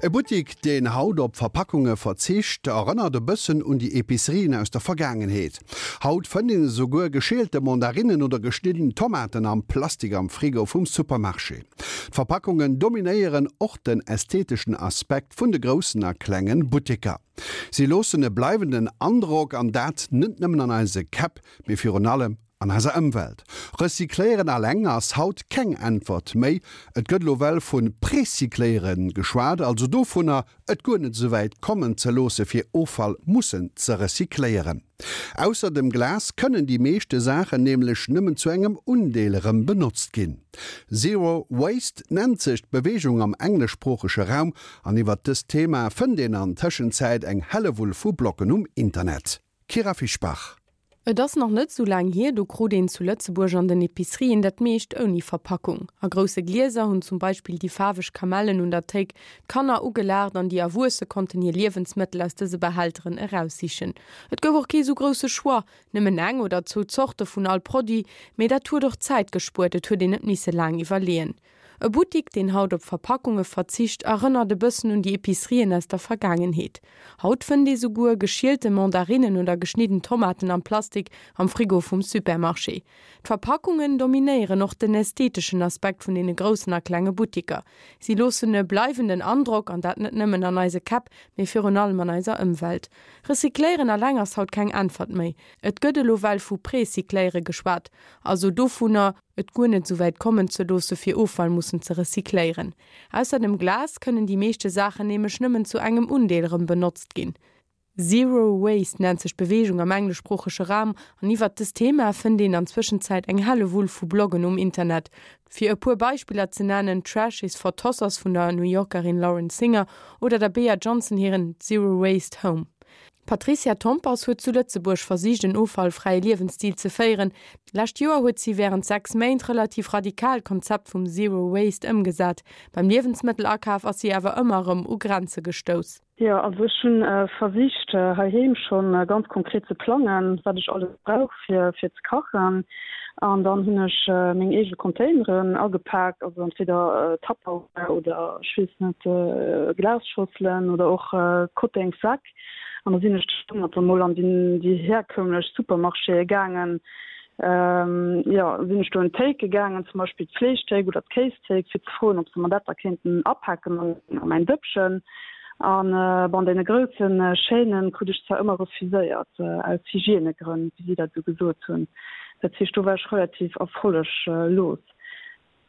E Buttik, deen haut op Verpackunge verzicht, erënnert e bëssen un déi Epicerien aus der Vergaangenheet. Haut fënnt een esouguer geschielte Mandarinnen oder geschnidden Tomaten am Plastik am Frigo vum Supermarché. D'Verpackungen dominéieren och den ästheteschen Aspekt vun de groussen a klengen Butteker. Si loossen e bleiwenden Androck, an dat net nëmmen an eise Käpp, mee virun allem an eiser Ëmwelt. Recycléieren alleng ass haut keng Äntwert méi. Et gëtt elo well vu Precycléiere geschwat, also dovunner, et guer net esouwäit kommen ze loosse fir Offall mussen ze recycléieren. Ausser dem Glas kënnen déi meeschte Saachen nämlech nëmmen zu engem Undeel erëm benotzt ginn. Zero Waste nennt sech d'Beweegung am engleschsproochege Raum an iwwert dëst Thema fënnt een an Tëschenzäit eng Hellewull vu Bloggen um Internet. Kyra Fischbach. Et ass nach net sou laang hier, do krut een zu Lëtzebuerg an den Epicerien dat meescht ouni Verpackung. A grousse Glieser hunn zum Beispill déi faarweg Kamellen un der Théik d'Kanner ugelaacht an déi Erwuesse konnten hir Liewensmëttel aus dëse Behälteren eraussichen. Et gouf och kee sou grousse Choix, nëmmen eng oder zwou Zorte vun all Produit, mee dat huet och Zäit gespuert, et huet een net misse laang iwwerleeën. E Buttik, deen haut op Verpackunge verzicht, erënnert e bëssen un déi Epicerien aus der Vergaangenheet. Haut fënnt ee souguer geschielte Mandarinnen oder geschnidden Tomaten am Plastik am Frigo vum Supermarché. D'Verpackungen dominéieren och den ästheteschen Aspekt vun deene groussen a klenge Buttiker. Si loossen e bleiwenden Androck, an dat net nëmmen an eise Käpp, mee virun allem an eiser Ëmwelt. Recycléieren alleng ass haut keng Äntwert méi. Et gëtt elo well vu Precycléiere geschwat, also dovunner, et guer net esouwäit kommen ze loosse fir Offall mussen ze recycléieren. Ausser dem Glas kënnen déi meeschte Saachen nämlech nëmmen zu engem Undeel erëm benotzt ginn. Zero Waste nennt sech d'Beweegung am engleschsproochege Raum an iwwert dëst Thema fënnt een an Zwëschenzäit eng Hellewull vu Bloggen um Internet. Fir e puer Beispiller ze nennen, Trash is for Tossers vun der New Yorkerin Lauren Singer oder der Bea Johnson hiren Zero Waste Home. D'Patricia Tompers huet zu Lëtzebuerg versicht en offallfräie Liewensstil ze féieren. D'lescht Joer huet si wärend 6 Méint relativ radikal d'Konzept vum Zero Waste ëmgesat. Beim Liewensmëttelakaf ass si awer ëmmer erëm u Grenze gestouss. Jo, also ech hunn versicht heiheem schonn ganz konkret ze plangen, wat ech alles brauch fir fir ze kachen. An dann hunn ech meng eege Containeren agepaakt, also entweder Tupperware oder ech weess net, Glasschosselen oder och Kottengssäck. An da sinn ech domat dann mol an déi herkömmlech Supermarchéë gaangen. Jo, sinn ech do un d'Théike gaangen, zum Beispill d'Fleeschthéik oder d'Kéisthéik, fir ze froen, ob se mer dat da kéinten apaken an mäin Dëppchen. An bon, deene grousse Chaînen krut ech zwar ëmmer refuséiert, aus Hygiènegrënn, wéi si dat esou gesot hunn. Dat heescht, do war ech relativ erfolleglos.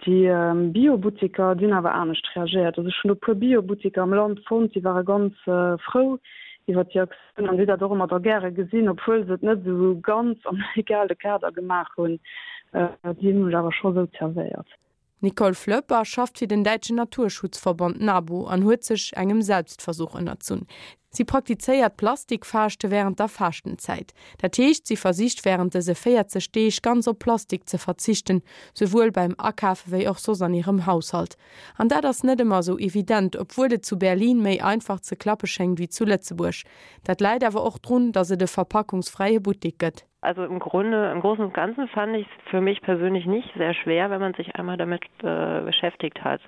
Déi Bio-Butteker, déi hunn awer anescht reagéiert. Also ech hunn do e puer Bio-Butteker am Land fonnt, déi ware ganz frou iwwer déi Aktioun an déi dat och ëmmer da gäre gesinn, obwuel se et net esou ganz am legale Kader gemaach hunn. Déi hunn mech awer scho sou zerwéiert. D'Nicole Flöpper schafft fir den däitschen Naturschutzverband NABU an huet sech engem Selbstversuch ënnerzunn. Si praktizéiert Plastikfaaschte wärend der Faaschtenzäit. Dat heescht, si versicht wärend dëse 40 Deeg ganz op Plastik ze verzichten, souwuel beim Akafe wéi och soss an hirem Haushalt. An dat ass net ëmmer esou evident, obwuel et zu Berlin méi einfach ze klappe schéngt wéi zu Lëtzebuerg. Dat läit awer och drun, datt et e verpackungsfräie Buttek gëtt. Also im Grunde im Großen und Ganzen fand ich es für mich persönlich nicht sehr schwer, wenn man sich einmal damit äh, beschäftigt hat.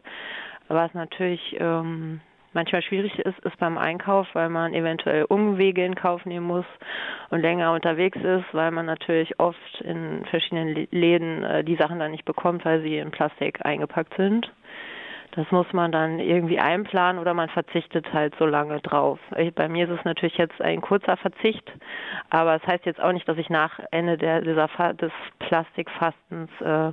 Was natürlich ähm, manchmal schwierig ist, ist beim Einkauf, weil man eventuell Umwege in Kauf nehmen muss und länger unterwegs ist, weil man natürlich oft in verschiedenen Läden äh, die Sachen dann nicht bekommt, weil sie in Plastik eingepackt sind. Das muss man dann irgendwie einplanen oder man verzichtet halt so lange drauf. Bei mir ist es natürlich jetzt ein kurzer Verzicht, aber es heißt jetzt auch nicht, dass ich nach Ende der, dieser Fa des Plastikfastens äh,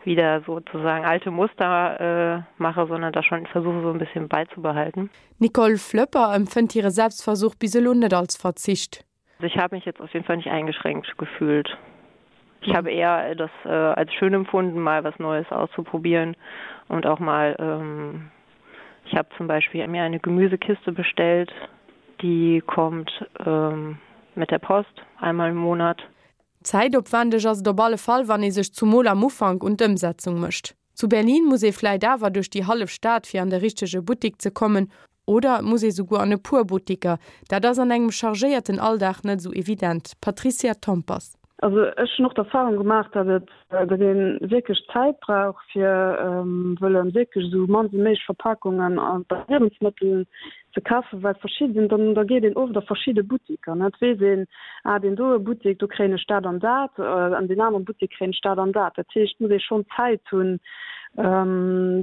wieder sozusagen alte Muster äh, mache, sondern da schon versuche so ein bisschen beizubehalten. Nicole Flöpper empfënnt hire Selbstversuch bis elo net als Verzicht. Also ich habe mich jetzt auf jeden Fall nicht eingeschränkt gefühlt. Ich habe eher das äh, als schön empfunden, mal was Neues auszuprobieren und auch mal ähm, ich habe zum Beispiel mir eine Gemüsekiste bestellt, die kommt ähm, mit der Post einmal im Monat. Zäitopwändeg ass et op alle Fall, wann ee sech zumol am Ufank un d'Ëmsetzung mécht. Zu Berlin muss ee vläit awer duerch déi hallef Stad fir an de richtege Buttik ze kommen, oder et muss ee souguer an e puer Buttiker. Dat ass an engem chargéierten Alldag net esou evident. Patricia Tompers. Also ech hunn och d'Erfahrung gemaach, datt et, datt ee wierklech Zäit brauch fir wëlle wierklech esou mann wéi méiglech Verpakungen bei Liewensmëttel ze kafen, well verschidden, dann da geet een oft a verschidde Buttiker, ne, et weess een, ah deen doe Buttik, do kréien ech dat an dat, an deen anere Buttik kréien ech dat an dat. Dat heescht, et muss ee schonn Zäit hunn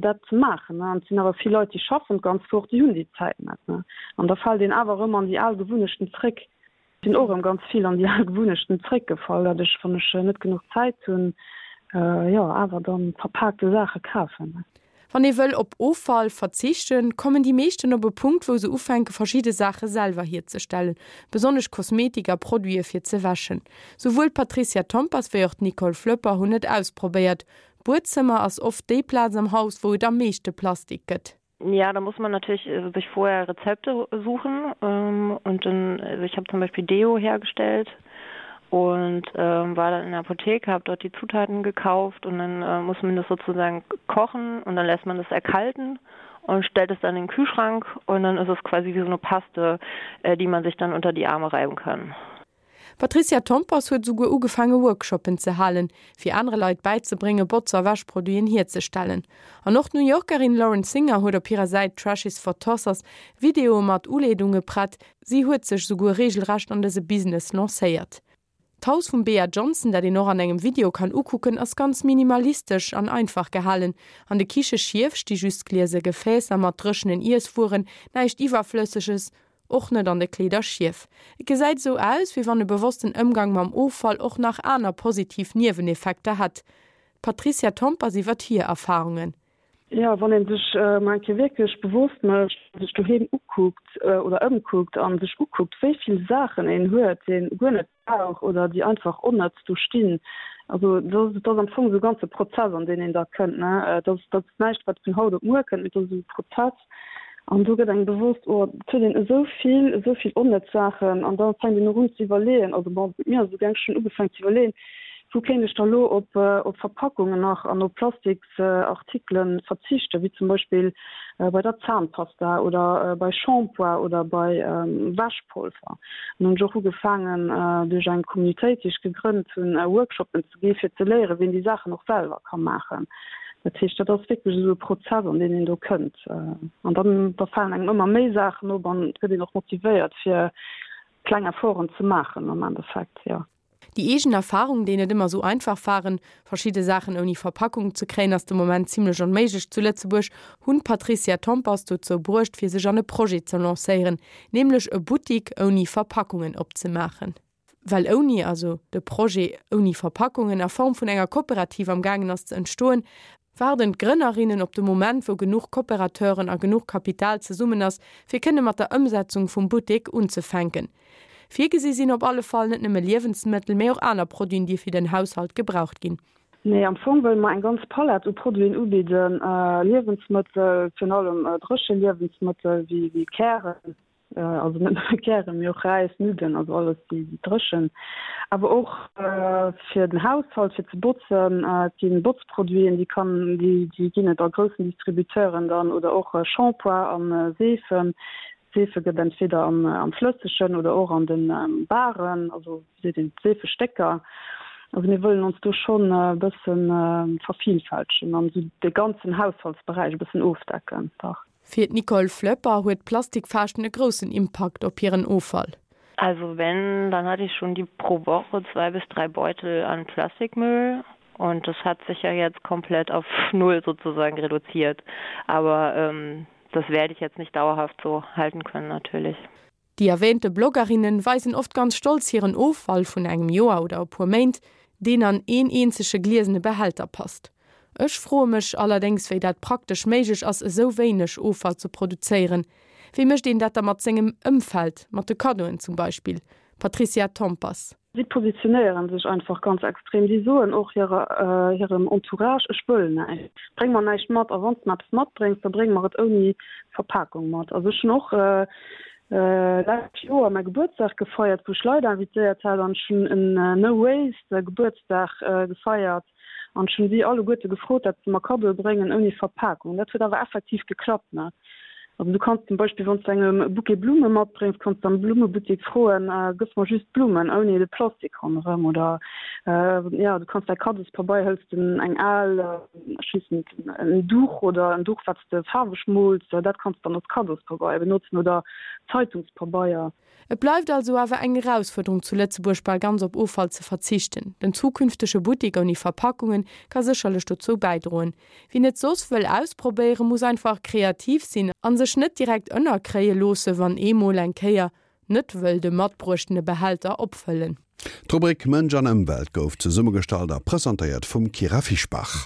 dat ze maachen, ne. An et sinn awer vill Leit, déi schaffen d'ganz Woch, déi hunn déi Zäit net, ne. An da fält een awer erëm an déi al Gewunnechten zréck. Sinn och erëm ganz vill an déi al Gewunnechten zréckgefall, datt ech, wann ech net genuch Zäit hunn, jo awer dann verpaakte Saache kafen. Wann ee wëll op Offall verzichten, kommen déi meeschten op e Punkt, wou se ufänke verschidde Saache selwer hierzestellen, besonnesch Kosmetik a Produite fir ze wäschen. Souwuel d'Patricia Tompers wéi och d'Nicole Flöpper hunn et ausprobéiert. D'Buedzëmmer ass oft déi Plaz am Haus, wou et am meeschte Plastik gëtt. Ja, da muss man natürlich äh, sich vorher Rezepte suchen ähm, und dann also ich habe zum Beispiel Deo hergestellt und ähm, war dann in der Apotheke, habe dort die Zutaten gekauft und dann äh, muss man das sozusagen kochen und dann lässt man das erkalten und stellt es dann in den Kühlschrank und dann ist es quasi wie so eine Paste, äh, die man sich dann unter die Arme reiben kann. D'Patricia Tompers huet esouguer ugefaange Workshoppen ze halen, fir anere Leit bäizebrénge Botz a Wäschproduiten hierzestellen. An och d'New Yorkerin Lauren Singer huet op hirer Säit Trash is for Tossers Videoe mat Uleedunge prett. Si huet sech esouguer reegelrecht an dëse Business lancéiert. D'Haus vum Bea Johnson, dat een och an engem Video kann ukucken, ass ganz minimalistesch an einfach gehalen. An de Kicheschief sti just gliese Gefäässer mat dréchenen Iesswueren, näischt Iwwerflësseges. Och net an de Kleeder schief. Et gesäit esou aus, wéi wann e bewossten Ëmgang mam Offall och nach aner positiv Nieweneffekter hätt. D'Patricia Tompers iwwert hir Erfarungen. Jo, wann ee sech mol eng Kéier wierklech bewosst mécht, sech doheem ukuckt oder ëmkuckt a sech ukuckt, wéi vill Saachen een huet, déi een guer net brauch oder déi einfach onnëtz do stinn. Also dat ass am Fong esou e ganze Prozess, an deen een da kënnt. Dat ass näischt, wat vun haut op muer kënnt, mee dat ass esou e Prozess. An do gëtt engem bewosst, oh, et huet een esou vill, esou vill onnëtz Saachen. An da fänkt een och un ze iwwerleeën, also bon, mir ass et esou gaang, ech hunn ugefaangen ze iwwerleeën, wou kéint ech da lo op Verpackungen nach an op Plastiks, Artikelen verzichten, wéi zum Beispill bei der Zahnpasta oder bei Shampoing oder bei Wäschpolver. An hunn ech och ugefaangen duerch eng Communautéit, déi ech gegrënnt hunn, Workshopen ze gi fir ze léieren, wéi een déi Saachen och selwer ka maachen. Dat heescht, dat ass wierklech esou e Prozess, an deen een do kënnt. An dann da falen engem ëmmer méi Saachen op an et gëtt een och motivéiert fir kleng Efforten ze maachen am Endeffekt, jo. Déi eegen Erfahrung, déi net ëmmer sou einfach waren, verschidde Saachen ouni Verpackung ze kréien, ass de Moment zimmlech onméiglech zu Lëtzebuerg, hunn d'Patricia Tompers dozou bruecht, fir sech an e Projet ze lancéieren, nämlech e Buttik ouni Verpackungen opzemaachen. Well ouni, also de Projet ouni Verpackungen a Form vun enger Kooperativ am gaangen ass ze entstoen, waarden d'Grënnerinnen op de Moment, wou genuch Kooperateuren a genuch Kapital zesummen ass, fir kënne mat der Ëmsetzung vum Buttek unzefänken. Virgesi sinn op alle Fall net nëmme Liewensmëttel, mee och aner Produiten, déi fir den Haushalt gebraucht ginn. Nee, am Fong wëlle mer eng ganz Palett u Produiten ubidden, Liewensmëttel, virun allem dréche Liewensmëttel wéi Kären, also net nëmme Kären, mee och Räis, Nudden, also alles déi dréchen, awer och fir den Haushalt, fir ze botzen. Et gi Botzproduiten, déi kann, déi ginn et a groussen Distributeuren dann, oder och Shampoing a Seefen. Seefe gëtt entweder am Flëssegen oder och an de Baren, also wéi seet een, Seefestécker. Also mir wëllen ons do schonn e bësse vervielfältegen an esou de ganzen Haushaltsberäich e bëssen ofdecken, dach. Fir d'Nicole Flöpper huet d'Plastikfaaschten e groussen Impakt op hiren Offall. Also wenn, dann hatte ich schon die pro Woche zwei bis drei Beutel an Plastikmüll und das hat sich ja jetzt komplett auf null sozusagen reduziert. Aber ähm, das werde ich jetzt nicht dauerhaft so halten können natürlich. Déi erwähnte Bloggerinnen weisen oft ganz stolz hiren Offall vun engem Joer oder e puer Méint, deen an een eenzege gliesene Behälter passt. Ech froe mech allerdéngs wéi dat praktesch méiglech ass esou wéineg Offall ze produzéieren. Wéi mécht een dat da mat sengem Ëmfeld, mat de Kaddoen zum Beispill? Patricia Tompers. Si positionéieren sech einfach ganz extrem. Si soen och hirem Entourage, Ech wëll näischt, bréng mer näischt mat. A wann s de mer eppes matbréngs, da bréng mer et ouni Verpakung mat. Also ech hunn och lescht Joer mäi Gebuertsdag gefeiert, wou ech Leit invitéiert hat an ech hunn en No Waste Gebuertsdag gefeiert an ech hunn si alleguerte gefrot, dat se mer Kaddoe bréngen ouni Verpakung. Dat huet awer effektiv geklappt. Also du kanns zum Beispill, wann s du engem e Bouquet Blumme matbréngs, kanns du am Blummebuttek froen, Gëss mer just d'Blummen ouni de Plastik ronderëm. Oder jo, du kanns däi Kaddospabeier, hëls de eng al, ech weess net, en Duch oder en Duch, wat s de faarweg mools, dat kanns du dann als Kaddospabeier benotzen oder Zeitungspabeier. Et bleift also awer eng Erausfuerderung zu Lëtzebuerg bal ganz op Offall ze verzichten. Den zukünftege Buttek ouni Verpackungen ka sécherlech dozou bäidroen. Wien et soss wëll ausprobéieren, muss einfach kreativ sinn an sech net direkt ënnerkréie loosse wann ee mol eng Kéier net wëll de matbruechtene Behälter opfëllen. D'Rubrik Mënsch an Ëmwelt gouf zesummegestallt a presentéiert vum Kyra Fischbach.